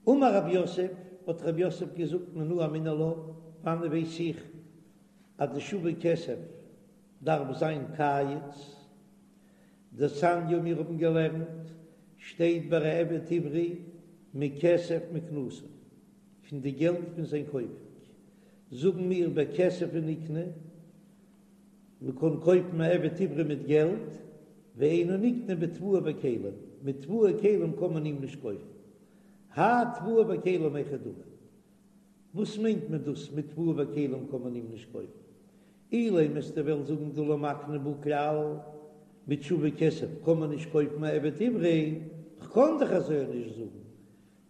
אמר רב יוסף, האט רב יוסף געזאגט מנא אמינא לה, וואנען ווייס איך אז די שווה כסף דארף זיין קיץ? דתניא מיר האבן געלערנט, שטייט ביי א עבד עברי מכסף מקנתו, פון די געלט פון זיין קויפונג, זאגן מיר בכסף הוא נקנה, מען קען קויפן א עבד עברי מיט געלט, ואינו נקנה בתבואה וכלים, מיט תבואה וכלים קען מען אים נישט קויפן. האי תבואה וכלים היכי דמי? וואס מיינט מען דאס מיט תבואה וכלים קען מען אים נישט קויפן? אילימא וועסטו וועלן זאגן דלא מקני בהו כלל, מיט שווה כסף קען מען נישט קויפן א עבד עברי, כ'קען דאך אזוי נישט זאגן.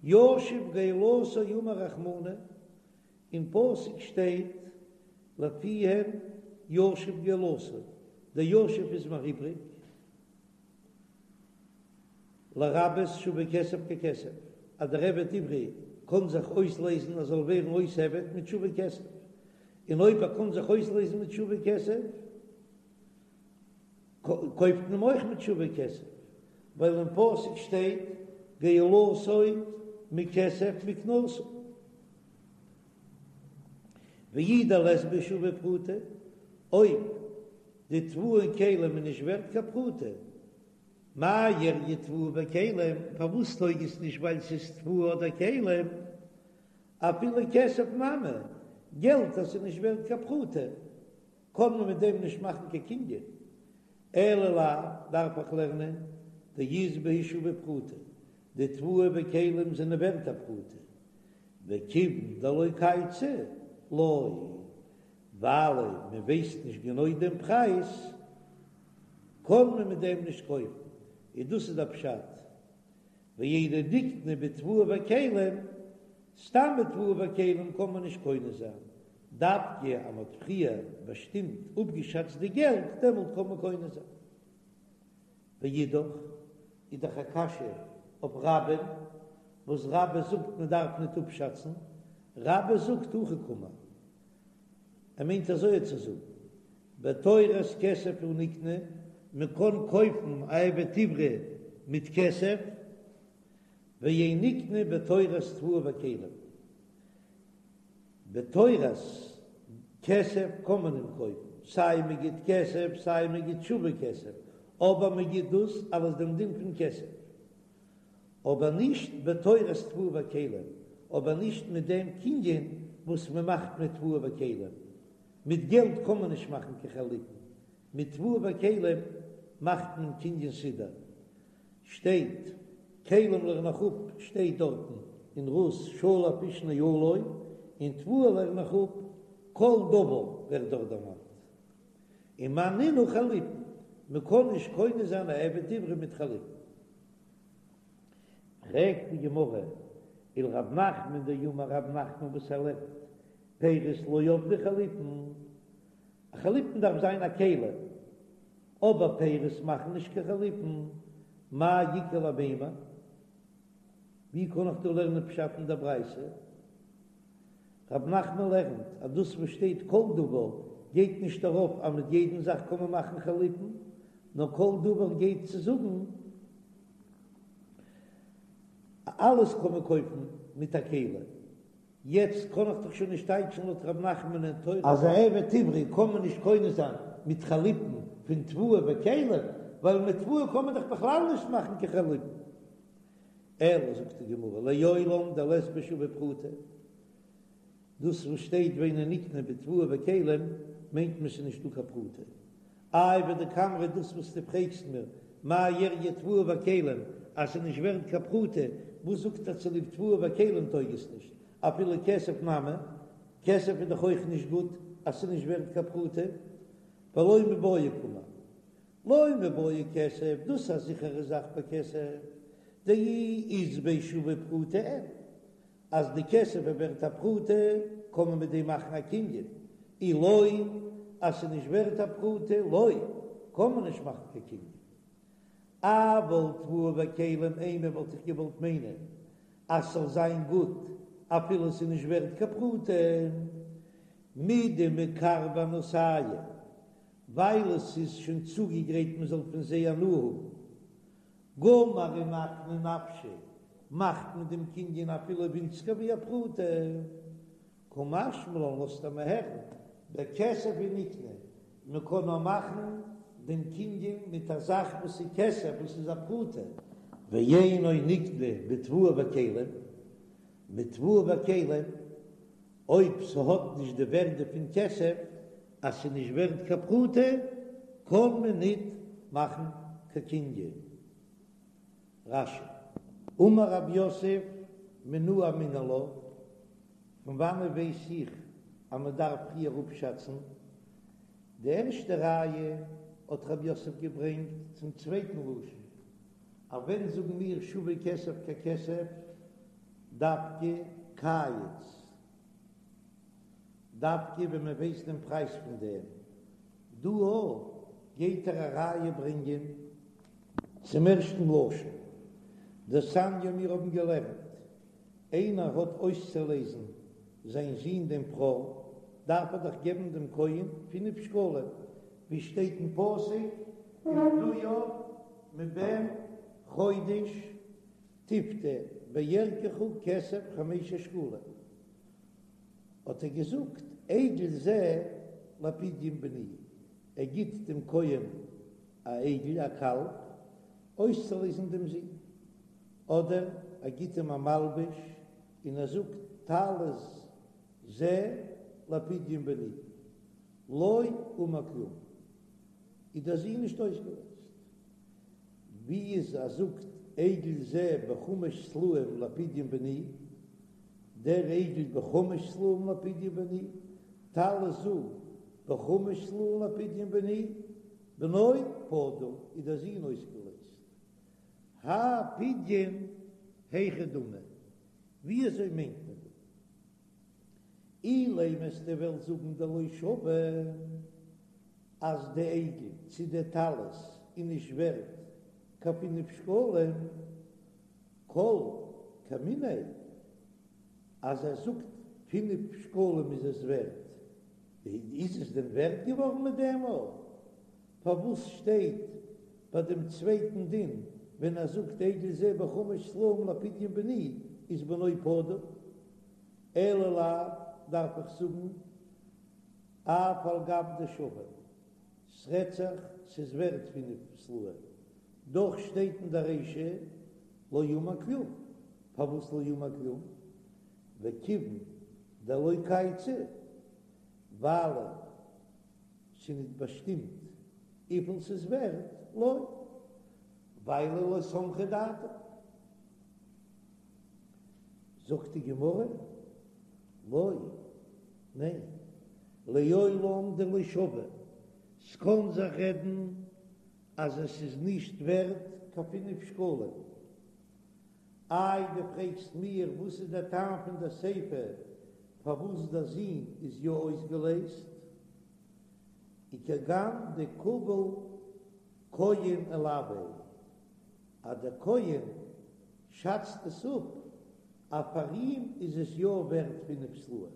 ישיב גאולתו אמר רחמנא, אין פסוק שטייט לפיהם ישיב גאולתו, דער ישיב איז מיר איבריג, לרבות שווה כסף ככסף, אז דער עבד עברי קען זיך אויסלייזן ער זאל ווערן אויס עבד מיט שווה כסף, און אויב ער קען זיך אויסלייזן מיט שווה כסף, קויפט מען אים אויך מיט שווה כסף, ווייל אין פסוק שטייט גאולתו מכסף מקנתו. ואי דלית בהו שווה פרוטה, אויב די תבואה און כלים איז נישט ווערט קיין פרוטה, מאי איריא תבואה וכלים, פארוואס טויג עס נישט ווייל ס'איז תבואה אדער כלים, אפילו כסף נמי, געלט אז ס'איז נישט ווערט קיין פרוטה, קען מען מיט דעם נישט מאכן קיין קנין, אלא לאו, דארף איך לערנען דאית בהו שווה פרוטה, די תבואה וכלים זענען ווערט א פרוטה, וכיוון דלא קייצי לא, ווייל מען ווייסט נישט גענוי דעם פרייז, קען מען מיט דעם נישט קויפן, און דאס איז דער פשט, ואינו נקנה בתבואה וכלים, סתם מיט תבואה וכלים קען מען נישט קונה זיין, דווקא אז מען האט פריער באשטימט אפגעשאצט די געלט, דעמאלט קען מען קונה זיין. ואידך, איז דאך א קשיא אויף רבה'ן, וואס רבה זאגט מען דארף ניט אפשאצן, רבה זאגט הכי קאמר, ער מיינט אזוי צו זאגן, בתורת כסף הוא נקנה, מען קען קויפן א עבד עברי מיט כסף, ואין נקנה בתורת תבואה וכלים. בתורת כסף קען מען אים קויפן, סיי מען גיט כסף סיי מען גיט שווה כסף, אבער מען גיט דאס אלס דעם דין פון כסף, אבער נישט בתורת תבואה וכלים, אבער נישט מיט דעם קנין וואס מען מאכט מיט תבואה וכלים, מיט געלט קען מען נישט מאכן קיין חליפין, מיט תבואה וכלים מאכט מען קנין סודר. שטייט, כלים לערן איך אפ שטייט דארטן אין רות שלף איש נעלו, און תבואה לערן איך אפ כל דבר ווערט דארט דערמאנט. און מאי נינהו חליפין, מען קען נישט קונה זיין א עבד עברי מיט חליפין. פרעגט די גמרא, ולרב נחמן דאמר רב נחמן וואס ער לערנט פירות לא עבדי חליפין, א חליפין דארף זיין א כלי, אבער פירות מאכן נישט קיין חליפין, מאי איכא למימר? ווי קען איך דא לערנען פשט אין דער ברייתא? רב נחמן לערנט אז דאס וואס שטייט כל דבר גייט נישט ארויף אז מיט יעדן זאך קען מען מאכן חליפין, נאר כל דבר גייט צו זאגן אלעס קען מען קויפן מיט א כלי. יעצט קען איך דאך שוין נישט טייטשן לויט ר' נחמן אין תורה אז א עבד עברי קען מען נישט קונה זיין מיט חליפין פון תבואה וכלים, ווייל מיט תבואה קען מען דאך בכלל נישט מאכן קיין חליפין. אלא זאגט די גמרא לעולם דלית ביה שווה פרוטה, דאס וואס שטייט ואינו נקנה בתבואה וכלים מיינט מען ס'איז נישטא קיין פרוטה. איי ודקאמרת דאס וואס דו פרעגסט מיר מאי איריא תבואה וכלים אז ס'איז נישט ווערט קיין פרוטה, וואס זאגט אז צוליב תבואה וכלים טויג עס נישט, אפילו כסף נמי, כסף איז דאך אויך נישט גוט אז ס'איז נישט ווערט קיין פרוטה, ולא מיבעיא קאמר, לא מיבעיא כסף, דאס איז א זיכערע זאך ביי כסף, דאי אית ביה שווה פרוטה אין. אז די כסף איז ווערט א פרוטה קען מען מיט דעם מאכן א קנין, אי לא אז ס'איז נישט ווערט א פרוטה לא קען מען נישט מאכן קיין קנין. אבל תבואה וכלים אימא וואלט איך געוואלט מיינען אז ס'זאל זיין גוט אפילו ס'איז נישט ווערט קיין פרוטה, מדמקרבי הנאתייהו ווייל עס איז שוין צוגעגרייט מען זאל פון זיי הנאה האבן, גמר ומקני נפשיה. מאכט מען דעם קנין אפילו ווינציגער ווי א פרוטה. קא משמע לן לאזט ער מיר הערן, בכסף הוא נקנה, מען קען נאר מאכן דעם קנין מיט א זאך וואס איז כסף וואס איז א פרוטה. ואינו נקנה בתבואה וכלים, מיט תבואה וכלים, אויב ס'האט נישט די ווערדע פון כסף, אז ס'איז נישט ווערט קיין פרוטה, קען מען ניט מאכן קיין קנין. רש"י. אמר רב יוסף מנא אמינא לה, פון וואנעט ווייס איך אז מען דארף פריער אפשאצן? די ערשטע ראיה האט רב יוסף געברענגט צום צווייטן לשון, אז ווען זאגן מיר שווה כסף ככסף דווקא קייץ, דווקא ווען מען ווייסט דעם פרייז פון דעם, דא גייט ער א ראיה ברענגען צום ערשטן לשון, דתניא מיר האבן געלערנט, איינער האט אויסצולייזן זיין זון דעם בכור, דארף ער דאך געבן דעם כהן פינף שקלים, ווי שטייט אין פסוק, ופדויו מבן חודש תפדה בערכך כסף חמשת שקלים, האט ער געזאגט, עגל זה לפדיון בני, ער גיט דעם כהן א עגל, א קאלב, אויסצולייזן דעם זון, אדער ער גיט אים א מלבוש און ער זאגט טלית זה לפדיון בני, לא אמר כלום, איז דער זון נישט אויסגעלייזט. ווי איז ער זאגט עגל זה בחמש סלעים לפדיון בני, דער עגל בחמש סלעים לפדיון בני, טלית זו בחמש סלעים לפדיון בני, בנו פדוי איז דער זון אויסגעלייזט. האי פדיון היכי דמי, ווי אזוי מיינט מען דא? אילימא וועסטו וועלן זאגן דלא שוי אז די עגל צו די טלית איז נישט ווערט קיין פינף שקלים, כל כמיניה אז ער זאגט פינף שקלים איז עס ווערט, איז עס דען ווערט געווארן מיט דעם אויך? פארוואס שטייט ביי דעם צווייטן דין ווען ער זאגט עגל זה בחמש סלעים לפדיון בני איז בנו פדוי? אלא לאו דארף איך זאגן אף על גב דשוי, ס'רעדט זיך ס'איז ווערט פינף סלעים, דאך שטייט אין די רישא לא אמר כלום, פארוואס לא אמר כלום? וכיוון דלא קייצי ווייל ס'איז ניט באשטימט וויפיל ס'איז ווערט, לא, ווייל לא סמכה דעתו. זאגט די גמרא, לא, ניין, לעולם דלא שוי, ס'קען זיך רעדן אז עס איז נישט ווערט קיין פינף שקלים. איי דו פרעגסט מיר וואס איז דער טעם פון דער סיפא פארוואס דער זון איז יא אויסגעלייזט? וכגון דקביל כהן עילויה, אז דער כהן שאצט עס אפ אז פאר אים איז עס יא ווערט פינף סלעים,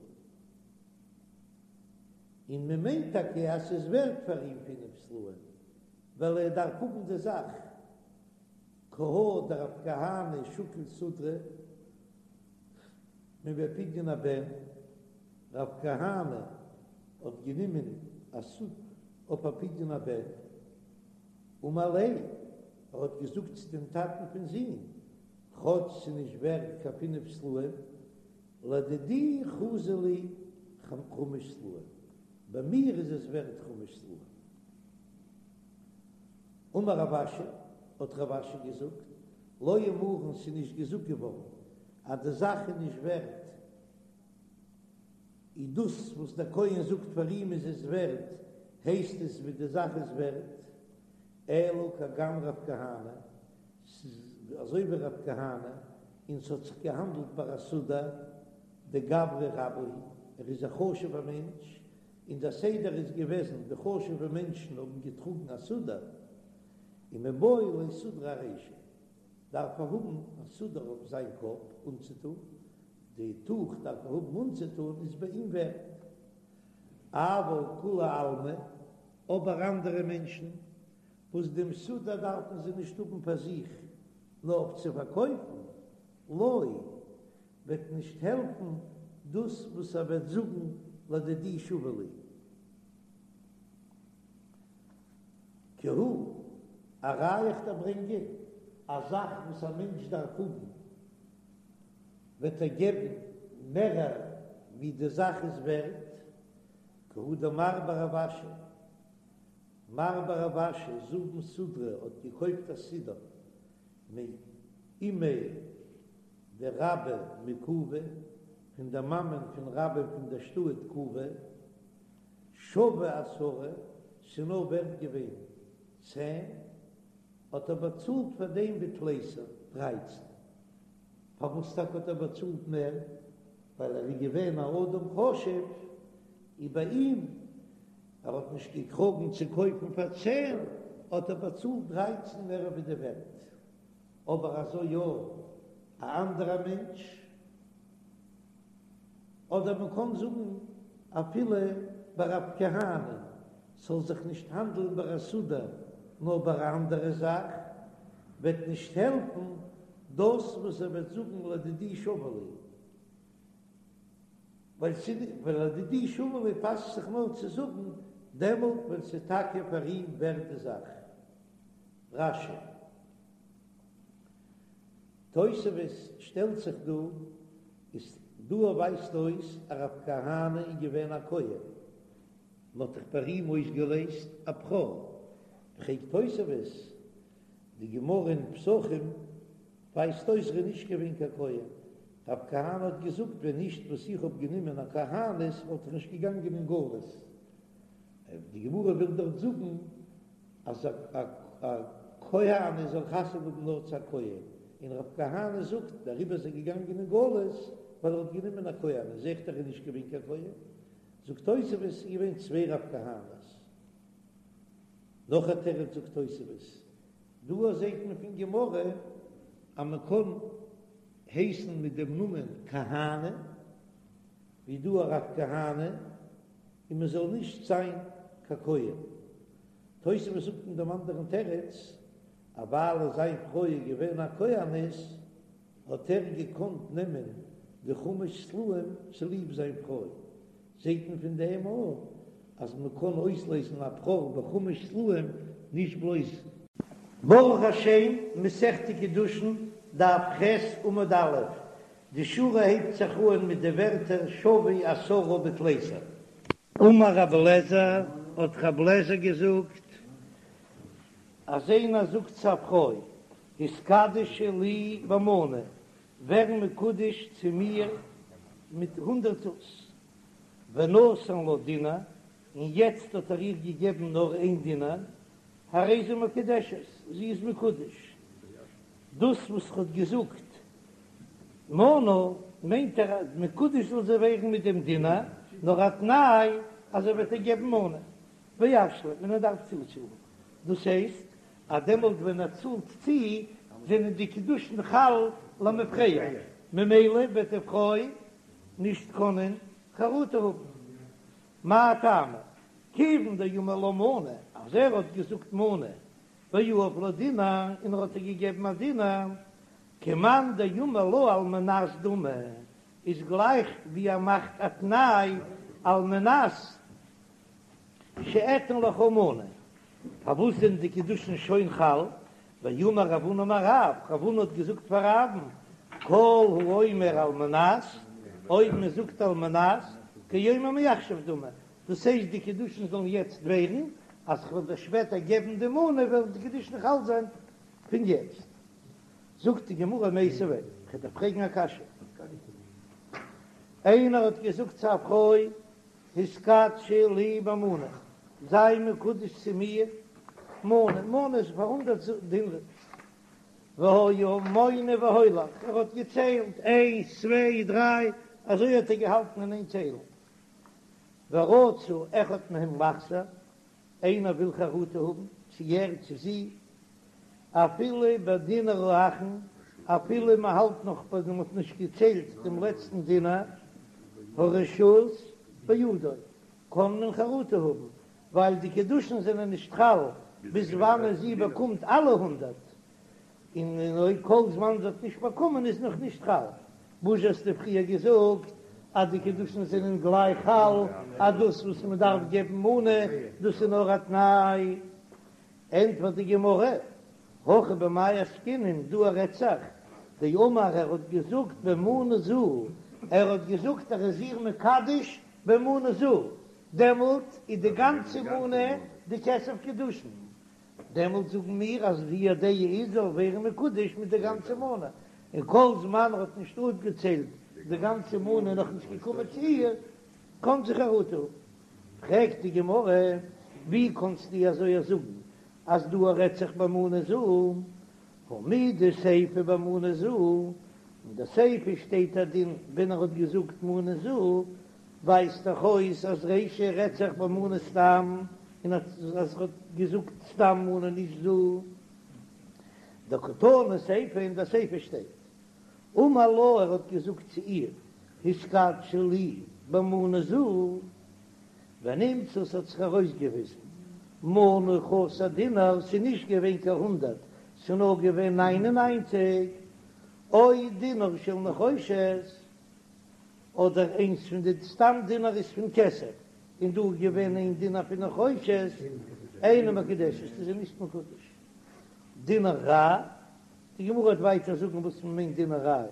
און מען מיינט טאקע אז ס'איז ווערט פאר אים פינף סלעים ווייל ער דארף האבן די זאך. כי הא דרב כהנא שקיל סודרא מבי פדיון הבן, רב כהנא האט גענומען א סודר אויף א פדיון הבן, אמר ליה, ער האט געזאגט צו דעם טאטן פון זון, כאטש ס'איז נישט ווערט קיין פינף סלעים, לדידי חזי לי חמש סלעים, ביי מיר איז עס ווערט חמש סלעים. אמר רב אשי, האט רב אשי געזאגט, לא אמרן ס'איז נישט געזאגט געווארן אז די זאך איז נישט ווערט, איז דאס וואס דער כהן זאגט פאר אים איז עס ווערט, הייסט עס ווי די זאך איז ווערט, אלא כגון רב כהנא, ס'איז אזוי ווי רב כהנא, און ס'האט זיך געהאנדלט ביי א סודר דגברא רבה הוא, ער איז א חשוב'ער מענטש, און דער סדר איז געוועזן די חשוב'ע מענטשן האבן געטראגן א סודר, ומיבעי ליה סודרא ארישיה, דארף ער האבן א סודר אויף זיין קאפ אנצוטון, די טוך דארף ער האבן אנצוטון איז ביי אים ווערט. אבל כולי עלמא, אבער אנדערע מענטשן וואס דעם סודר דארפן זיי נישט האבן פאר זיך נאר אויף צו פארקויפן, לא, וועט נישט העלפן דאס וואס ער וועט זאגן לדידי שוה לי. כי הא, א ראיה איך דיר ברענגען, א זאך וואס א מענטש דארף האבן וועט ער געבן מערער ווי די זאך איז ווערט, כי הא דמר בר רב אשי, מר בר רב אשי זבן סודרא האט געקויפט א סודר מאימיה דרבה מקובי, פון דער מאמען פון רבה פון דער שטאט קובי, שווה עשרה, ס'איז נאר ווערט געווען צען, האט ער באצאלט פאר דעם בתליסר, דרייצן. פארוואס טאקע האט ער באצאלט מער? ווייל ער איז געווען א אדם חשוב, און ביי אים, ער האט נישט געקראגן צו קויפן פאר צען, האט ער באצאלט דרייצן מער ווי די ווערט. אבער אזוי יא, א אנדערע מענטש, אדער מען קען זאגן אפילו ביי רב כהנא, ס'זאל זיך נישט האנדלן ביי א סודר נאר ביי א אנדערע זאך, וועט נישט העלפן דאס וואס ער וועט זאגן לדידי שוה לי, ווייל ווייל לדידי שוה לי פאסט זיך נאר צו זאגן דעמאלט ווען ס'איז טאקע פאר אים ווערט די זאך. רש"י. תוספות שטעלט זיך דא, איז דא ווייזט אויס אז רב כהנא איז געווען א כהן, מען האט דאך ביי אים אויסגעלעזט א בכור, פרעגט תוספות, די גמרא אין פסחים ווייזט אויס ער איז נישט געווען קיין כהן, רב כהנא האט געזאגט ווען נישט וואס איך האב גענומען א כהנת וואלט איך נישט געגאנגען אין גלות, די גמרא וויל דארט זאגן אז א כהנת זאל חתונה האבן נאר צו א כהן, און רב כהנא זאגט דעריבער איז ער געגאנגען אין גלות ווייל ער האט גענומען א כהנת, זעט ער איז נישט געווען קיין כהן, זאגט תוספות ס'איז געווען צוויי רב כהנא'ס. נאך א תירוץ זאגט תוספות, דא זעט מען פון גמרא אז מען קען הייסן מיט דעם נאמען כהנא, ווי דא א רב כהנא, און מען זאל נישט זיין קיין כהן. תוספות זאגט אין דעם אנדערן תירוץ, אז ווייל זיין פרוי איז געווען א כהנת, האט ער געקאנט נעמען די חמש סלעים צוליב זיין פרוי. זעט מען פון דעם אויך אז מען קען אויסלעזן א בכור בחמש סלעים נישט בלויז. ברוך השם, מסכת קידושין, דף ח' עמוד א', די שורה הייבט זיך אהן מיט די ווערטער שוה עשרה בתליסר. אמר רבי אליעזר, האט רבי אליעזר געזאגט, אז איינער זאגט צו א פרוי, התקדשי לי במנה, ווער מקודש צו מיר מיט הונדרעט זוז, ונתן לה דינר, און יעצט האט ער איר געגעבן נאר איין דינר, הרי זו מקודשת, זי איז מקודש. דאס וואס ער האט געזאגט מנה, מיינט ער אז מקודש זאל זי ווערן מיט דעם דינר, נאר א תנאי אז ער וועט איר געבן מנה, וישלים, און ער דארף צוצאלן. דאס הייסט אז דעמאלט ווען ער צאלט צו, זענען די קידושין חל למפרע, ממילא וועט די פרוי נישט קענען חרטה האבן. מאי טעמא? כיוון דאמר לה מנה, אז ער האט געזאגט מנה, ויהב לה דינר, און ער האט איר געגעבן א דינר, כמאן דאמר לה על מנת דמי, איז גלייך ווי ער מאכט א תנאי על מנת שאתן לך מנה. פארוואס זענען די קידושין שוין חל? ואמר רב הונא אמר רב, רב הונא האט געזאגט פאר רב'ן, כל האומר על מנת, אויב מען זאגט על מנת, כאומר מעכשיו דמי, דאס הייסט די קידושין זאלן יעצט ווערן, אז כ'וועל דיר שפעטער געבן די מנה וועלן די קידושין חל זיין פון יעצט. זאגט די גמרא מיתיבי, כ'וועל דיר פרעגן א קשיא, איינער האט געזאגט צו א פרוי, התקדשי לי במנה, זיי מקודש צו מיר מנה, מנה איז פאר הונדערט דינרים, והיה מונה והולך, ער האט געציילט איינס צוויי דריי, אזוי האט ער געהאלטן אין איין ציילן, ורצה אחד מהם לחזור, איינער וויל חרטה האבן, צו ער צו זי, אפילו בדינר האחרון, אפילו מען האלט נאך ביי מען האט נישט געציילט דעם לעצטן דינר, הרשות בידו, קען מען חרטה האבן, ווייל די קידושין זענען נישט חל ביז וואנען זי באקומט אלע הונדערט. און אויב כל זמן זי האט נישט באקומען איז נאך נישט חל. וואס האסטו פריער געזאגט אז די קידושין זענען גלייך חל, אז דאס וואס מען דארף געבן מנה דאס איז נאר א תנאי? ענטפערט די גמרא, הכא במאי עסקינן, דא רעדט זיך, דאמר ער האט געזאגט במנה זו, ער האט געזאגט ער איז איר מקדש במנה זו, דעמאלט איז די גאנצע מנה די כסף קידושין, דעמאלט זאגן מיר אז די דעה איז זאל ווערן מקודש מיט די גאנצע מנה, און כל זמן ער האט נישט אפגעציילט די גאנצע מנה און נאכנישט געקומען צו איר, קען זי חרטה האבן. פרעגט די גמרא, ווי קאנסטו אזוי זאגן אז דא רעדט זיך במנה זו, הא מדסיפא במנה זו, אין די סיפא שטייט א דין ווען ער האט געזאגט מנה זו, ווייזט דאך אויס אז רישא רעדט זיך במנה סתם, און אז ער האט געזאגט סתם מנה נישט זו. דקתני סיפא אין די סיפא שטייט אמר לה ער האט געזאגט צו איר התקדשי לי במנה זו, ונמצא ס'האט זיך ארויסגעוויזן מנה חסר דינר, ס'איז נישט געווען קיין הונדרעט, ס'איז נאר געווען ניין און ניינציג, או דינר של נחושת, אדער איינס פון די סתם דינר איז פון כסף, און דא איז געווען איין דינר פון נחושת, אינה מקודשת, איז זי נישט מקודש. דינר רע, די גמרא וועט ווייטער זאגן וואס מען מיינט דינר רע,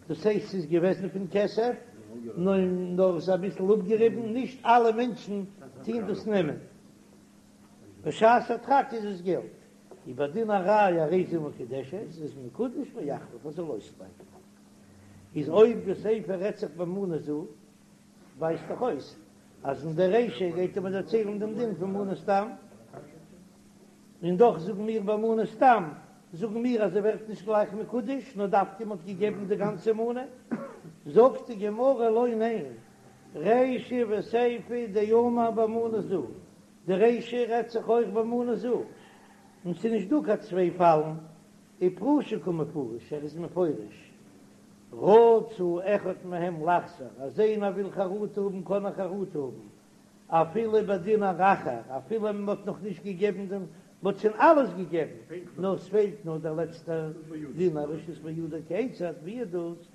דאס הייסט ס'איז געוועזן פון כסף, נאר עס איז אביסל אפגעריבן, נישט אלע מענטשן טוהן דאס נעמען, בשעת הדחק איז עס געלט, ובדינר רע הרי זו מקודשת, איז מקודש ויחליף ער זאל אויסבייטן. איז אויב די סיפא רעדט זיך במנה זו, ווייזט דאך אויס אז אין די רישא גייט ער מיר דערציילן דעם דין פון מנה סתם, און דאך זאגן מיר במנה סתם, זאגן מיר אז ער ווערט נישט גלייך מקודש, נאר דווקא מ'האט געגעבן די גאנצע מנה. זאגט די גמרא לא ניין, רישא וסיפא דאמר במנה זו, די רישא רעדט זיך אויך במנה זו, און ס'איז נישט דא קיין צוויי פאלן, ופרושי קא מפרש, ער איז מפרש, רצה אחד מהם לחזור, אז איינער וויל חרטה האבן קען ער חרטה האבן, אפילו בדינר אחר, אפילו מען האט נאך נישט געגעבן דעם, מען האט שוין אלעס געגעבן, נאר ס'פעלט נאר דער לעצטער דינר, רשות בידו כיצד, ווי איז דאס?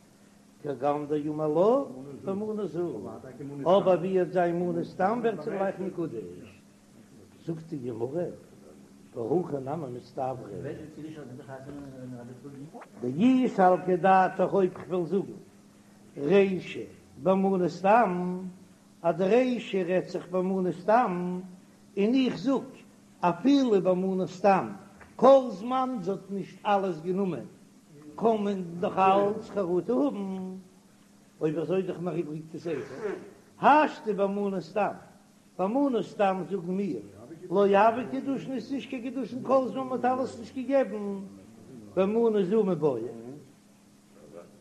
כגון דאמר לה במנה זו, אבער ווי וועט זיין מנה סתם ווערט זי גלייך מקודש. זאגט די גמרא, והכי נמי מסתברא. דאי סלקא דעתך אויב כ'וועל זאגן רישא במנה סתם, אז די רישא רעדט זיך במנה סתם, און איך זאג אפילו במנה סתם, כל זמן זי האט נישט אלעס גענומען קען מען נאך אלץ חרטה האבן, אויב אזוי איז דאך נאך איבריג די סיפא, השתא במנה סתם, במנה סתם זאגן מיר, לא הוו קידושין איז נישט קיין קידושין כל זמן מ'האט אלעס נישט געגעבן, במנה זו מיבעיא.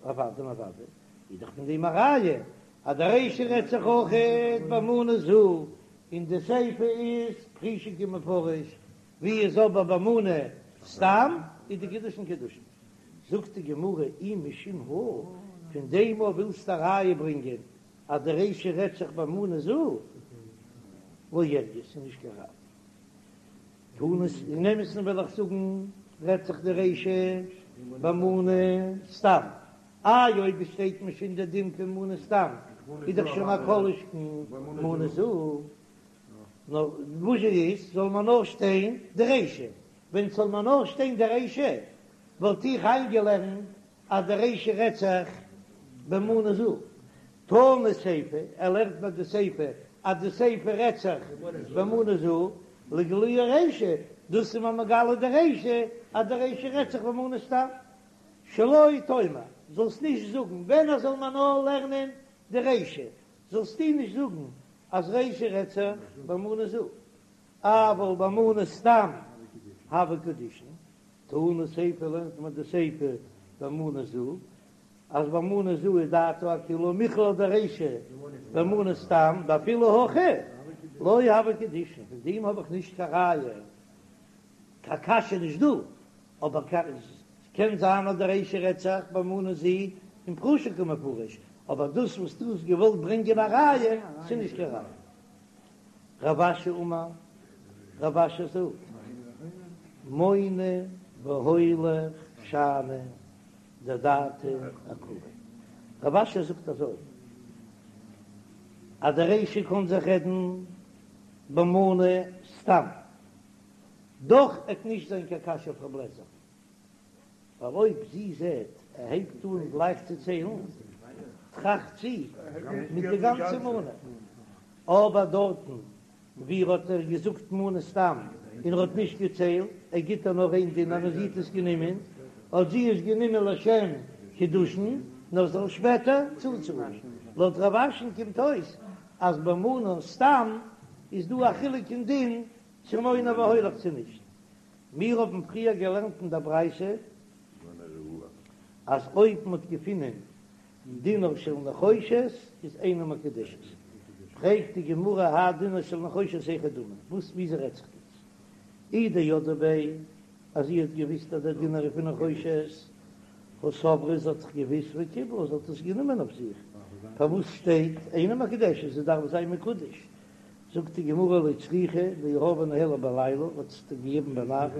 אוודאי און אוודאי איז דאך פון דעם א ראיה אז די רישא רעדט זיך אויכעט במנה זו, און די סיפא איז פרושי קא מפרש, ווי איז אבער במנה סתם איז די קידושין קידושין. זאגט די גמרא אי משום הא, פון דעם אויב ווילסטו א ראיה ברענגען אז די רישא רעדט זיך במנה זו, לא איריא, ס'איז נישט קיין ראיה. תנא, אין אמת'ן וועל איך זאגן רעדט זיך די רישא במנה סתם, איי אויב עס שטייט מיר שוין די דין פון מנה סתם איז דאך שוין א כל שכן מנה זו, נאר וואס איז זאל מען נאר שטיין די רישא, ווען ס'זאל מען נאר שטיין די רישא וואלט איך איינגעלערנט אז די רישא רעדט זיך במנה זו. תנא סיפא, ער לערנט מיר די סיפא אז די סיפא רעדט זיך במנה זו, לגלויי רישא, דאס איז מיר מגלה די רישא אז די רישא רעדט זיך במנה סתם. שלא תאמר, זאלסט נישט זאגן, ווען ער זאל מיר נאר לערנען די רישא, זאלסטו נישט זאגן אז רישא רעדט זיך במנה זו, אבל במנה סתם הוו קידושין, תנא סיפא לערנט מען די סיפא במנה זו, אז במנה זו איז דעתו אכולהו מכלל דרישא במנה סתם דאפילו הכי לא הוו קידושין, פון דעם האב איך נישט קיין ראיה, קיין קשיא נישט דא, אבער קען זיין אז די רישא רעדט זיך במנה זו און פרושי קא מפרש, אבער דאס וואס דו האסט געוואלט ברענגען א ראיה, ס'איז נישט קיין ראיה. רב אשי אמר, רב אשי זאגט, מונה והולך. שאני דדעתיה אעקרה. רב אשי זאגט אזוי אז די רישא קען זיך רעדן במנה סתם, דאך עט נישט זיין קיין קשיא אויף רב לעזער, ווייל אויב זי זעט ער הייבט אן גלייך צו ציילן, טראכט זי מיט די גאנצע מנה, אבער דארטן ווי ער האט איר געזאגט מנה סתם און ער האט נישט געציילט, ער גיט איר נאר איין דינר און זי האט עס גענומען, האט זי עס גענומען לשם קידושין נאר זאל שפעטער צוצאלן. לויט רב אשי'ן קומט אויס אז במנה סתם איז דא א חילוק אין דין צו מונה והולך צו נישט. מיר האבן פריער געלערנט אין דער ברייתא אז אויב מען האט געפונען דינר של נחושת איז אינה מקודשת, פרעגט די גמרא האי דינר של נחושת היכי דמי, וואס וויאזוי רעדט זיך דאס? אי דידעה ביה, אז זי האט געוויסט אז דער דינר איז פון נחושת, הא סברה זי האט זיך געוויסט וקיבלה זי האט עס גענומען אויף זיך, פארוואס שטייט אינה מקודשת זי דארף זיין מקודש? זאגט די גמרא לא צריכא דיהבה ניהלה בליליא, האט עס געגעבן ביינאכט,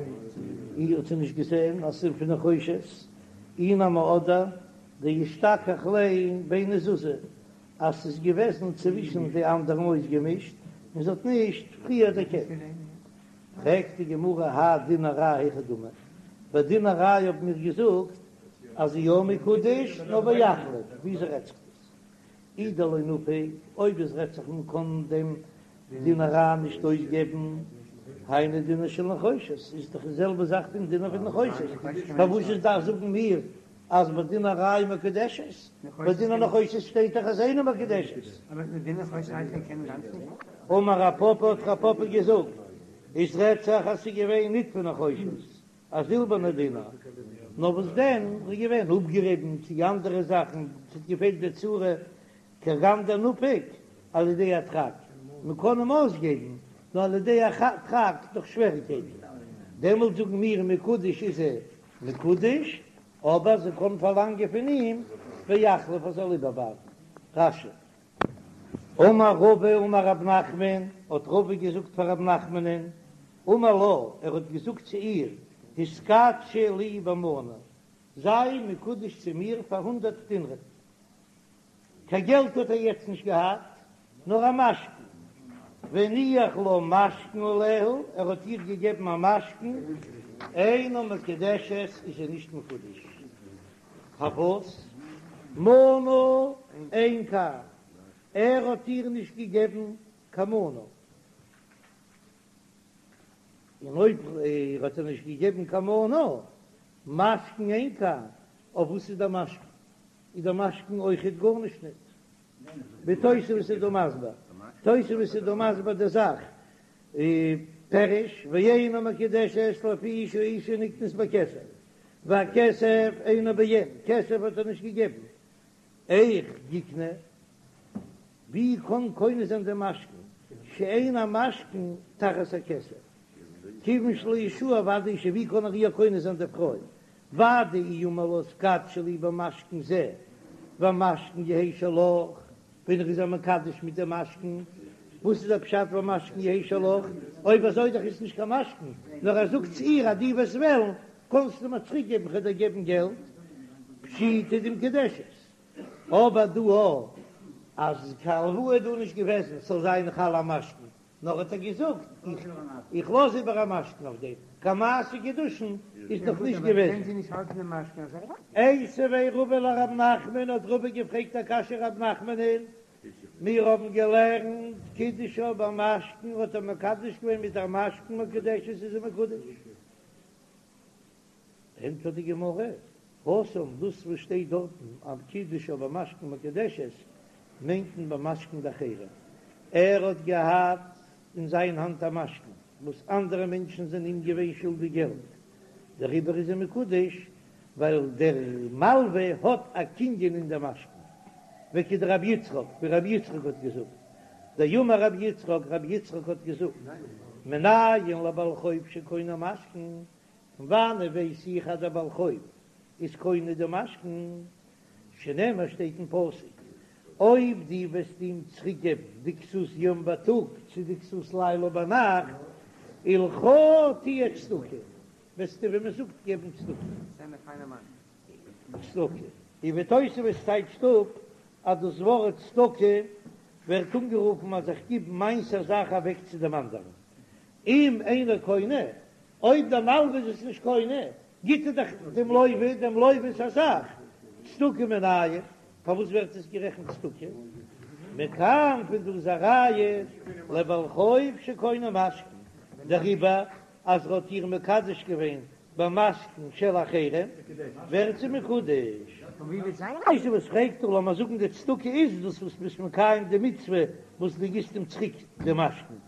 אי האט זי נישט געזען אז ס'איז פון נחושת, אי נמי אדער דאשתכח ליה ביני זוזי, אז ס'איז געוועזן צווישן די אנדערן אויסגעמישט און זי האט נישט פריער דערקענט. פרעגט די גמרא האי דינר רע היכי דמי, ביי דינר רע האבן מיר געזאגט אז זי יא מקודש נאר ויחליף, וויאזוי רעדט זיך דאס? אי דלא נפיק, אויב עס רעדט זיך מען קען דעם דינר רע נישט אויסגעבן, היינו דינר של נחושת, איז דאך די זעלבע זאך פון דינר פון נחושת, פארוואס איז דארף זאגן מיר אז ביי דינר רע איז מקודשת, ביי דינר נחושת שטייט דאך אז אינה מקודשת. אמר רב פפא האט רב פפא געזאגט, עס רעדט זיך אז ס'איז געווען ניט פון נחושת, א זילבערנע דינר, נאר וואס דען, ס'איז געווען אפגעריבן צו אנדערע זאכן, ס'האט געפעלט די צורה, כגון דנפיק על ידי הדחק, מען קען אים אויסגעבן, נאר על ידי הדחק דורך שוועריקייטן, דעמאלט זאגן מיר מקודש איז ער מקודש, אבער זי קען פארלאנגען פון אים ויחליף ער זאל איבערבייטן. רש"י. אמר רבא אמר רב נחמן, האט רבא געזאגט פאר רב נחמנ'ן, אמר לה, ער האט געזאגט צו איר, התקדשי לי במנה, זיי מקודש צו מיר פאר הונדערט דינרים. קיין געלט האט ער יעצט נישט געהאט, נאר א משכון, והניח לה משכון עליה, ער האט איר געגעבן א משכון, אינה מקודשת, איז זי נישט מקודש. פארוואס? מנה אין כאן, ער האט איר נישט געגעבן קיין מנה, און אויב ער האט איר נישט געגעבן קיין מנה, משכון אין כאן, אויף וואס איז דער משכון? איז דער משכון אויכעט גארנישט ניט. ווי תוספות איז דא מסביר, תוספות איז דא מסביר די זאך, פירוש, ואינה מקודשת לפי שהאשה נקנית בכסף, והכסף אינו בעין, כסף האט ער נישט געגעבן, איך יקנה, ווי קען קונה זיין דעם משכון, שאין המשכון תחת הכסף, כיוון שלא הרשאה ודאי אשה, ווי קען ער איר קונה זיין די פרוי, ודאי אי אמר לה התקדשי לי במשכון זה, והמשכון יהא שלך, ווען ער איז איר מקדש מיט דעם משכון, וואס איז דער פשט והמשכון יהא שלך? אויב אזוי דאך איז נישט קיין משכון, נאר ער זאגט צו איר אז דו וועסט וועלן, קענסטו מיר צוריק געבן, כ'וועל דיר געבן געלט, פשיטא דמקודשת. אבער דא אז קיין הלוואה איז דא נישט געוועזן, ס'זאל זיין חל א משכון, נאר האט ער געזאגט, איך לאז איבער א משכון אויף דעם, קיין מעשה קידושין איז נאך נישט געוועזן. איתיביה רבא לרב נחמן, האט רבא געפרעגט א קשיא רב נחמנ'ן, מיר האבן געלערנט קידשה במשכון, האט ער מקדש געווען מיט א משכון מקודשת איז זי מקודש. ענטפערט די גמרא, התם, דאס וואס שטייט דארטן אז קידשה במשכון מקודשת מיינט מען במשכון דאחרים, ער האט געהאט אין זיין האנט א משכון וואס אנדערע מענטשן זענען אים געווען שולדיג געלט, דעריבער איז ער מקודש ווייל דער מלווה האט א קנין אין דעם משכון, וכדרבי יצחק, ווי רבי יצחק האט געזאגט, דאמר רבי יצחק, רבי יצחק האט געזאגט, מנין לבעל חוב שקונה משכון, פון וואנעט ווייס איך אז דער בעל חוב איז קונה די משכון? שנאמר שטייט אין פסוק, אויב דו וועסט אים צוריק געבן די כסות יום בייטאג צו די כסות לילה ביינאכט, ולך תהיה צדקה. וועסטו ווי מען זאגט געבן צדקה. צדקה. און ווי תוספות טייטשט אפ אז דאס ווארט צדקה ווערט אנגערופן אז איך גיב מיינס א זאך אוועק צו דעם אנדערן. אם אינו קונה, אויב דער מלווה איז עס נישט קונה, גיט ער דאך דעם לווה דעם לווה'ס א זאך, צדקה מנין, פארוואס ווערט עס גערעכנט צדקה? מכאן פון דא איז א ראיה לבעל חוב שקונה משכון, דעריבער אז ער האט איר מקדש געווען במשכון של אחרים ווערט זי מקודש. תוספות פרעגט דא, לאמיר זאגן די צדקה איז דאס וואס ביסט מקיים די מצוה וואס דו גיבסט אים צוריק די משכון,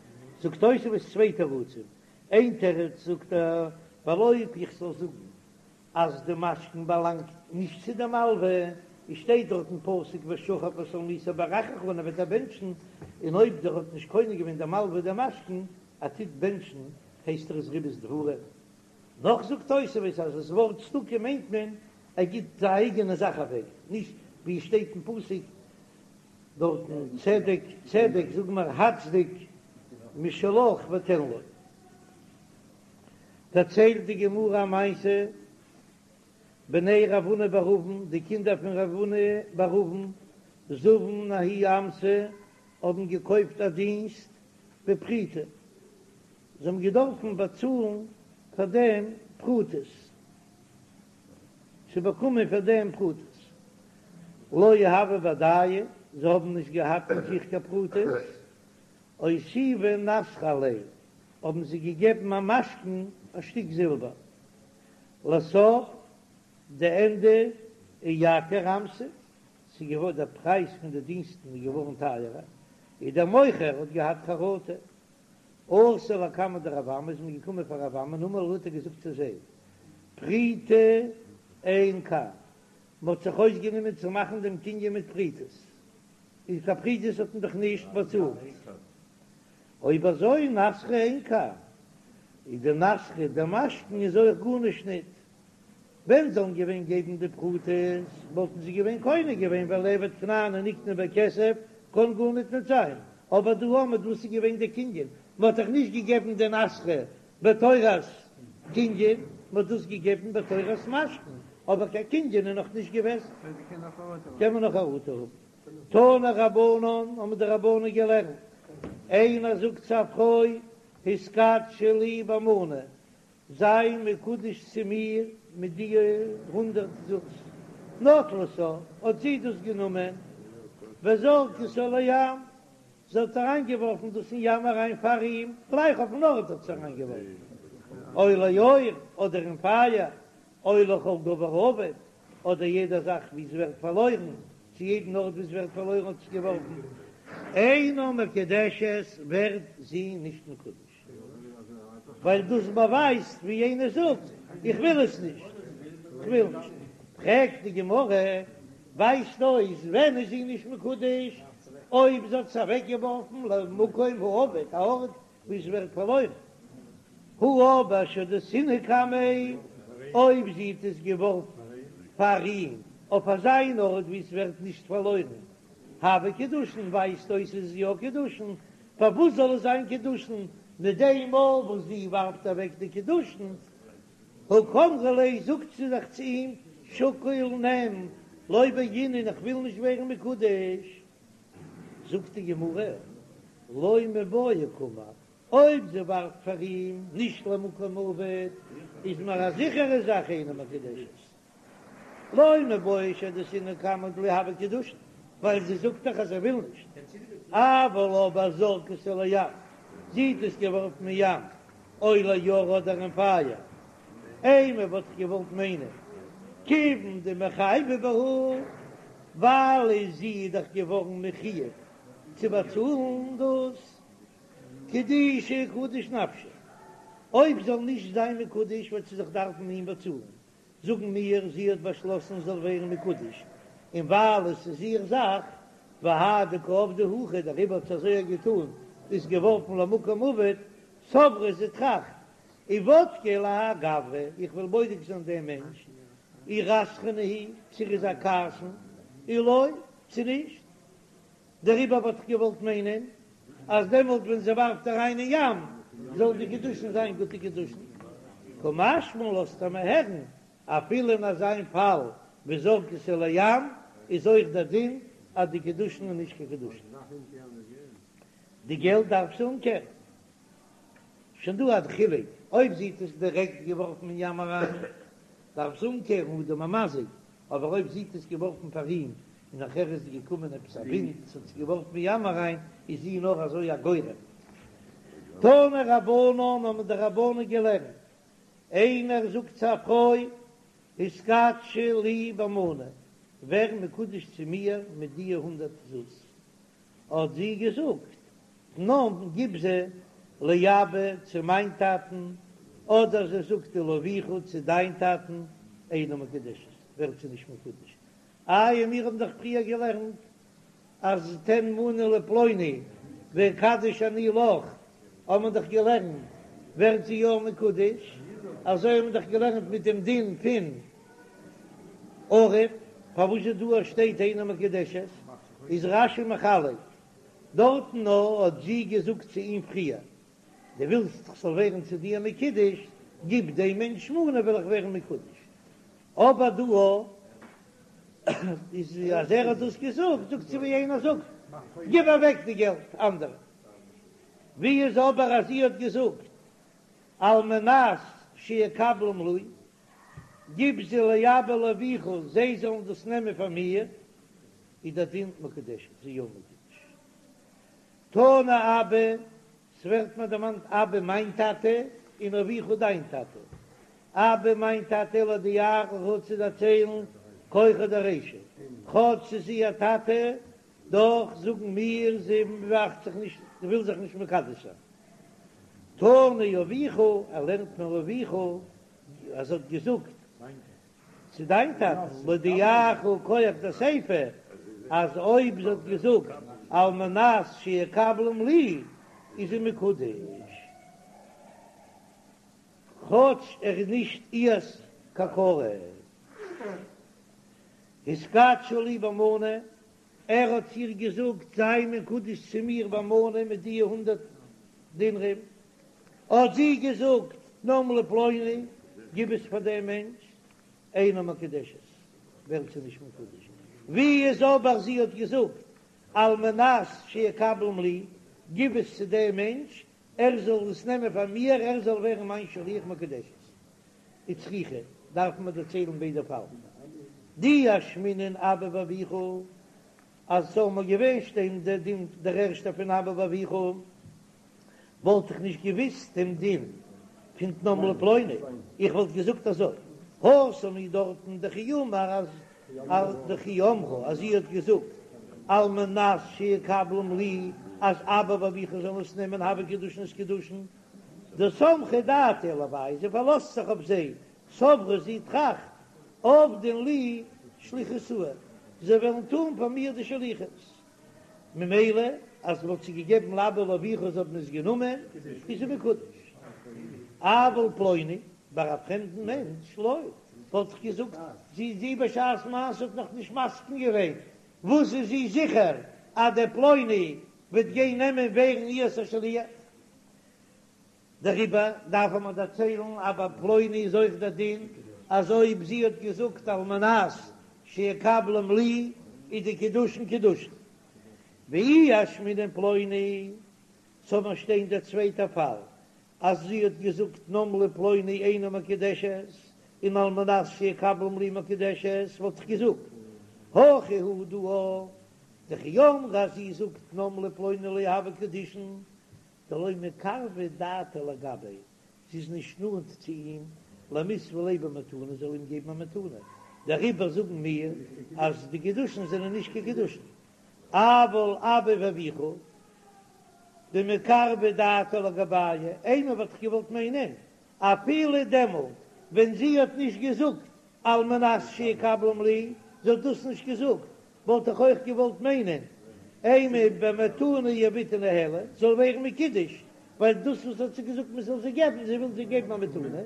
זאגט תוספות צוויי תירוצים, איין תירוץ זאגט ער, ווייל אויב איך זאל זאגן אז די משכון באלאנגט נישט צו די מלווה, עס שטייט דארט אין פסוק ושכב בשלמתו וברכך און ער וועט דיר בענטשן, און אויב דער האט נישט קונה געווען די מלווה די משכון, ער טוט בענטשן הייסט ער עס ריבית דברים. נאך זאגט תוספות אז דאס ווארט צדקה מיינט מען ער גיט זיין אייגענע זאך אוועק, נישט ווי עס שטייט אין פסוק דארטן צדק צדק זאג מיר הצדק משלך ותן לו. דערציילט די גמרא א מעשה, בני רב הונא בר אבין, די קינדער פון רב הונא בר אבין, זבון ההיא אמתא, האבן געקויפט א דינסט בפריטי, זיי האבן געדארפן באצאלן פאר דעם פרוטות, צו באקומען פאר דעם פרוטות, לא הוו בהדייהו, זיי האבן נישט געהאט מיט זיך קיין פרוטות, אותיבו נסכא עליה, האבן זיי געגעבן א משכון א שטיק זילבער, לסוף די ענדע אייקר אמתא, ס'איז געווארן דער פרייז פון די דינסטן איז געווארן טייערער, און דער מוכר האט געהאט חרטה. אתו לקמיה דרב אמי איז מען געקומען פאר רב אמי אמר להו האט ער געזאגט צו זיי, פריטי אין כאן, מען האט זיך אויסגענומען צו מאכן דעם קנין מיט פרוטות, און קיין פרוטות האט מען דאך נישט באצאלט, אויב אזוי נסכא אין כאן, איז די נסכא דער משכון איז אויך גארנישט ניט, ווען זאלן געווען געבן די פרוטות וואלטן זיי געווען קונה געווען ווייל עבד כנעני נקנה בכסף קען גארניט ניט זיין, אבער דא האמער וואס איז געווען די קנין, מען האט דאך נישט געגעבן די נסכא בתורת קנין, מען האט דאס געגעבן בתורת משכון, אבער קיין קנין איז נאך נישט געוועזן. קען מען נאך חרטה האבן. תנו רבנן האבן די רבנן געלערנט, איינער זאגט צו א פרוי התקדשי לי במנה, זיי מקודש צו מיר מיט די הונדערט זוז. נטלתה, האט זי דאס גענומען, וזרקתה לים, זי האט אריינגעווארפן דאס אין ים אריין פאר אים, גלייך אויפן ארט האט זי אריינגעווארפן, או לאור, אדער אין פייער, או לכל דבר אבד, אדער יעדע זאך ווי עס ווערט פארלוירן, צו יעדן ארט ווי עס ווערט פארלוירן האט זי געווארפן, אינה מקודשת, ווערט זי נישט מקודש. ווייל דאס באווייזט ווי יענער זאגט איך וויל עס נישט, איך וויל נישט. פרעגט די גמרא, ווייזט אויס ווען איז זי נישט מקודש? אויב זי האט עס אוועק געווארפן למקום האבד, א ארט וואו עס ווערט פארלוירן. הא אבער שהדתינהו קמיה, אויב זי האט עס געווארפן פאר אים אויף אזא אן ארט וואו עס ווערט נישט פארלוירן, הוה קידושין ווייזט אויס עס איז יא קידושין, פארוואס זאל עס זיין קידושין מיט דעם מאל וואס זי ווארפט אוועק די קידושין? הא קאמרה ליה זאגט זי דאך צו אים שקול נעם לא בעינא איך וויל נישט ווערן מקודש, זאגט די גמרא לא מיבעיא קאמר אויב זי ווארפט פאר אים נישט למקום האבד איז מיר א זיכערע זאך אינה מקודשת. לא מיבעיא שהדתינהו קמיה דלא הוה קידושין, ווייל זי זאגט דאך אז זי וויל נישט, אבל אבער זרקתה לים, זי האט עס געווארפן אין ים, או לאור אדער אין פייער, אימא וואלט איך געוואלט מיינען, כיוון דמיחייבא בהו, ווייל זי איז דאך געווארן מחויב צו באצאלן דאס, קדושי קדיש נפשה, אויב זאל נישט זיין מקודש וועט זי זיך דארפן אים באצאלן, זאגן מיר, זי האט באשלאסן זאל ווערן מקודש, און ווייל עס איז איר זאך, והאי דקא עבדה הכי, דעריבער האט זי אזוי געטאן, איז געווארפן למקום אבד, סברא זי טראכט, איבדקיה להאי גברא, איך וויל בודק זיין דעם מענטש, אי רתחנא הוא, צו ער איז א כעסן, אי לא, צו נישט. דעריבער וואלט איך געוואלט מיינען אז דעמאלט ווען זי ווארפט אריין אין ים זאל די קידושין זיין גוטע קידושין. קא משמע לן לאזט ער מיר הערן, אפילו אין אזא פאל ווי זרקתו לים איז אויך דער דין אז די קידושין איז נישט קיין קידושין. די געלט דארף זי אומקערן. שוין דא א חילוק, אויב זי האט עס דירעקט געווארפן אין ים אריין דארף זי אומקערן אדם המזיק, אבער אויב זי האט עס געווארפן פאר אים און נאכער איז געקומען עפעס א ווינט עס האט עס געווארפן אין ים אריין איז זי נאר אזוי א גורם. תנו רבנן האבן די רבנן געלערנט, איינער זאגט צו א פרוי התקדשי לי במנה, ווער מקודש צו מיר מיט דיע הונדערט זוז, האט זי געזאגט, תנם גיב זיי לאבא צו מיין טאטן, אדער זי זאגט ולאביך צו דיין טאטן, אינה מקודשת, ווערט זי נישט מקודש. איי מיר האבן דאך פריער געלערנט אז תן מנה לפלוני ואקדש אני לך, האבן מיר דאך געלערנט ווערט זי יא מקודש, אזוי האבן מיר דאך געלערנט מיט דעם דין פון ערב, פארוואס איז דא אז שטייט אינה מקודשת? איז רש"י מחלק, דארטן נאר האט זי געזאגט צו אים פריער, דו ווילסט איך זאל ווערן צו דיר מקודש, גיב דעם מענטש מנה וועל איך ווערן מקודש, אבער דא איז אז ער האט דאס געזאגט, זאגט זי ווי איינער זאגט, גיב אוועק די געלט אנדערע. ווי איז אבער אז זי האט געזאגט על מנת שיקבלום לי, גיב זיי לאבא ולאביך זיי זאלן דאס נעמען פאר מיר, איז דער דין מקודשת, זי יא מקודש. תנא אבא, ס'ווערט מיר דערמאנט אבא מיין טאטע, און אביך דיין טאטע. אבא מיין טאטע להודיעך צו דערציילן כחא דרישא, כאטש ס'איז איר טאטע, דאך זאגן מיר זי מאכט זיך נישט, זי וויל זיך נישט מקדש זיין. תנא אביך, ער לערנט מיר אביך אז ער האט געזאגט צו דיין טאטן, להודיעך כח דסיפא, אז אויב זי האט געזאגט על מנת שיקבלום לי, איז זי מקודש, כאטש ער איז נישט איהר'ס קיין קרוב. התקדשי לי במנה, ער האט איר געזאגט זיי מקודש צו מיר במנה מיט די הונדערט דינרים, האט זי געזאגט תנם לפלוני, גיב עס פאר דעם מענטש, אינה מקודשת, ווערט זי נישט מקודש, ווי איז אבער זי האט געזאגט על מנת שיקבלום לי, גיב עס צו דעם מענטש, ער זאל עס נעמען פאר מיר, ער זאל ווערן מיין שליח מקודשת. וצריכא, דארף מען דערציילן ביידע פאלן. דאי אשמעינן אבא ואביך, אז ס'זאל מיר געווען שטיין דער דין דער ערשטער פון אבא ואביך, וואלט איך נישט געוויסט דעם דין פון תנם לפלוני, איך וואלט געזאגט אזוי, התם הוא דארטן דכי אמר אז דכי אמרה אז זי האט געזאגט על מנת שיקבלום לי אז אבא ואביך זאלן עס נעמען הוו קידושין איז קידושין, דסמכה דעתה עילוייהו, זי פארלאזט זיך אויף זיי, סברה זי טראכט, עבדין לי שליחותאי, זיי וועלן טון פאר מיר די שליחות, ממילא אז מ'האט זיי געגעבן לאבא ולאביך זיי האבן עס גענומען, איז זי מקודש. אבל פלוני, ביי א פרעמדן מענטש, לא, וואלט איך געזאגט, זי זי בשעת מעשה האט נאך נישט מסכים געווען, וואס איז זי זיכער אז דער פלוני וועט גיין נעמען ווערן איהר'ס א שליח? דעריבער דארף מען דערציילן אז ביי פלוני איז אויך דער דין אז אויב זי האט געזאגט על מנת שיקבלום לי איז די קידושין קידושין. ואי אשמעינן פלוני, זאל מיר שטיין דער צווייטער פאל אז זי האט געזאגט תנם לפלוני אינה מקודשת און על מנת שיקבלום לי מקודשת וואלט איך געזאגט הכא הוא דא דכי אמרה אז זי זאגט תנם לפלוני לא הוו קידושין דלא מקרבא דעתה לגביה, זי איז נישט נאנט צו אים, למיתבה ליה במתנה, זאל אים געבן א מתנה, דעריבער זאגן מיר אז די קידושין זענען נישט קיין קידושין, אבל אבא ואביך דמקרבא דעתה לגבייהו, אימא וואלט איך געוואלט מיינען, אפילו דעמאלט ווען זי האט נישט געזאגט על מנת שיקבלום לי, זי האט דאס נישט געזאגט, וואלט איך אויך געוואלט מיינען, אימא במתנה יהביתהו ניהלי, זאל ווערן מקודש, ווייל דאס וואס האט זי געזאגט מען זאל זיי געבן, זי וויל זיי געבן א מתנה.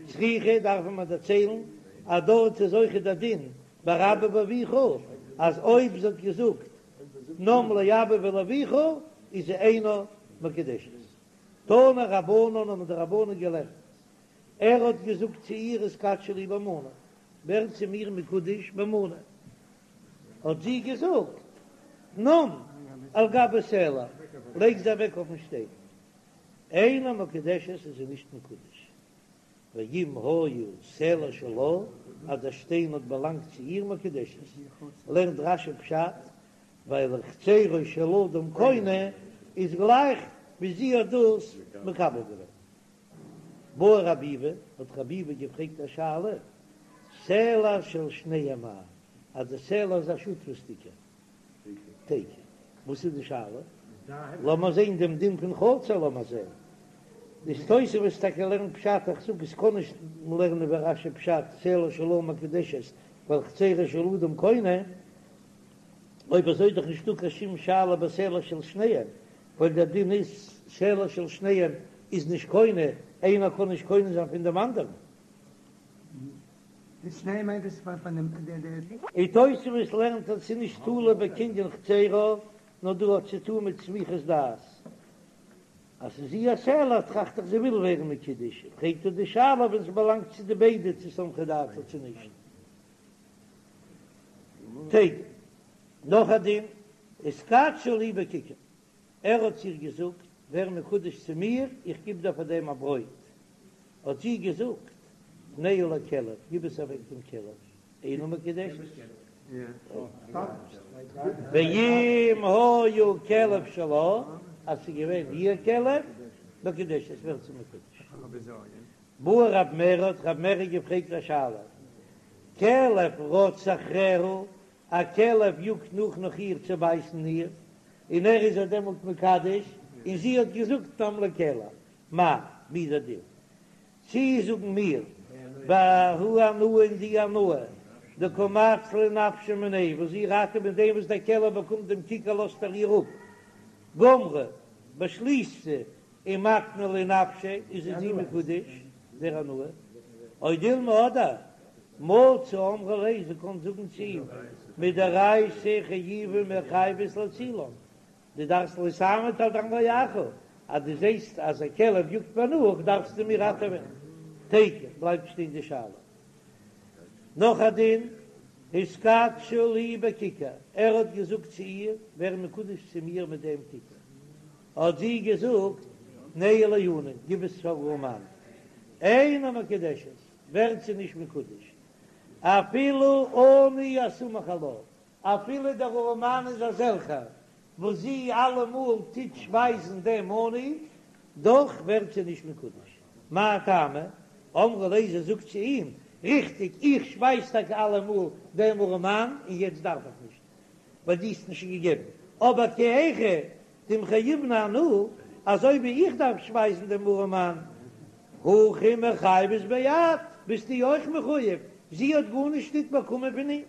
צריכא דארף מען דערציילן אז דארט איז אויך דער דין ביי אבא ואביך, אז אויב זי האט געזאגט תנם לאבא ולאביך איז זי אינה מקודשת. תנו רבנן האבן די רבנן געלערנט. ער האט געזאגט צו איר התקדשי לי במנה, ווער צו מיר מקודש במנה, האט זי געזאגט תנם על גבי סלע, לייג זיי אוועק אויפן שטיין, אינה מקודשת איז זי נישט מקודש, ואם היה סלע שלה, אז דער שטיין האט באלאנגט צו איר מקודשת, לערנט רש"י פשט, ווייל חצרו של אדם קונה איז גלייך ווי זי האט דאס מקבל געווען. בעי רב ביבי, האט רב ביבי געפרעגט א שאלה, סלע של שניהם מהו, אז די סלע איז א שותפות'דיגע, תיקו, וואס איז די שאלה? לאמיר זען דעם דין פון חצר, לאמיר זען. די תוספות טאקע לערנט פשט, איך זאג עס קען נישט לערנען ווי רש"י פשט, סלע שלה מקודשת, ווייל חצרו של אדם קונה, אויב אזוי איז דאך נישטא קיין שום שאלה בסלע של שניהם, ווייל דער דין איז סלע של שניהם איז נישט קונה, איינער קען נישט קונה זיין פון דעם אנדערן. די שניהם מיינט עס פון דעם די. און תוספות לערנט אז ס'איז נישט תלוי בקנין חצרה, נאר דא האט צו טון מיט סמיכות דעת. אז ס'איז איר סלע טראכט איך זי וויל ווערן מקודש, פרעגט ער די שאלה ווען ס'באלאנגט צו די ביידע צו סמכא דעתה צו נישט. תיקו. נאך א דין, התקדשי לי בכיכר, ער האט צו איר געזאגט, ווער מקודש צו מיר, איך גיב דיר פאר דעם א ברויט. האט זי געזאגט, תנהו לכלב, גיב עס אוועק דעם כלב, אינה מקודשת. ואם היה כלב שלה, אז ס'איז געווען איר כלב, מקודשת, ווערט זי מקודש. בעי רב מרי, האט רב מרי געפרעגט א שאלה, כלב רץ אחריה, א כלב יאגט נאך נאך איר צו בייסן איר, און ער איז איר דעמאלט מקדש, און זי האט געזאגט תנם לכלב, מהו, ווי איז דער דין? צי זאגן מיר, בההיא הנאה אין די הנאה, דקא מצלה נפשה מיניה, וואס זי ראטעוועט מיט דעם וואס דער כלב באקומט דעם כיכר לאזט ער איר אפ, גמרה, באשליסט זי, ומקנה ליה נפשה, איז זי מקודש, דער הנאה, או דילמא אדער, מצי אמרה ליה, זי קען זאגן צו אים, מדאורייתא חיובי מיחייבת להצילן, דו דארפסט לא תעמוד על דם רעך, אז דו זעסט אז א כלב יאגט מיר נאך דארפסטו מיר ראטעווען. תיקו, בלייבט שטיין די שאלה. נאך א דין, התקדשי לי בכיכר, ער האט געזאגט צו איר, ווער מקודש צו מיר מיט דעם כיכר. האט זי געזאגט, תנהו לעני, גיב עס פאר ארעמאן. אינה מקודשת, ווערט זי נישט מקודש, אפילו עני הסמוך עלה, אפילו דער ארעמאן איז אזעלכער וואס זי אלעמאל טוט שפייזן דעם עני, דאך ווערט זי נישט מקודש. מאי טעמא? אמרה ליה, זי זאגט צו אים, ריכטיג, איך שפייז טאקע אלעמאל דעם ארעמאן און יעצט דארף איך נישט, ווייל דו האסט נישט געגעבן, אבער כי היכי דמיחייבנא אנא, אזוי ווי איך דארף שפייזן דעם ארעמאן, הכי מיחייבת ביה את, ביסטו אויך מחוייב, זי האט גארנישט ניט באקומען פון אים.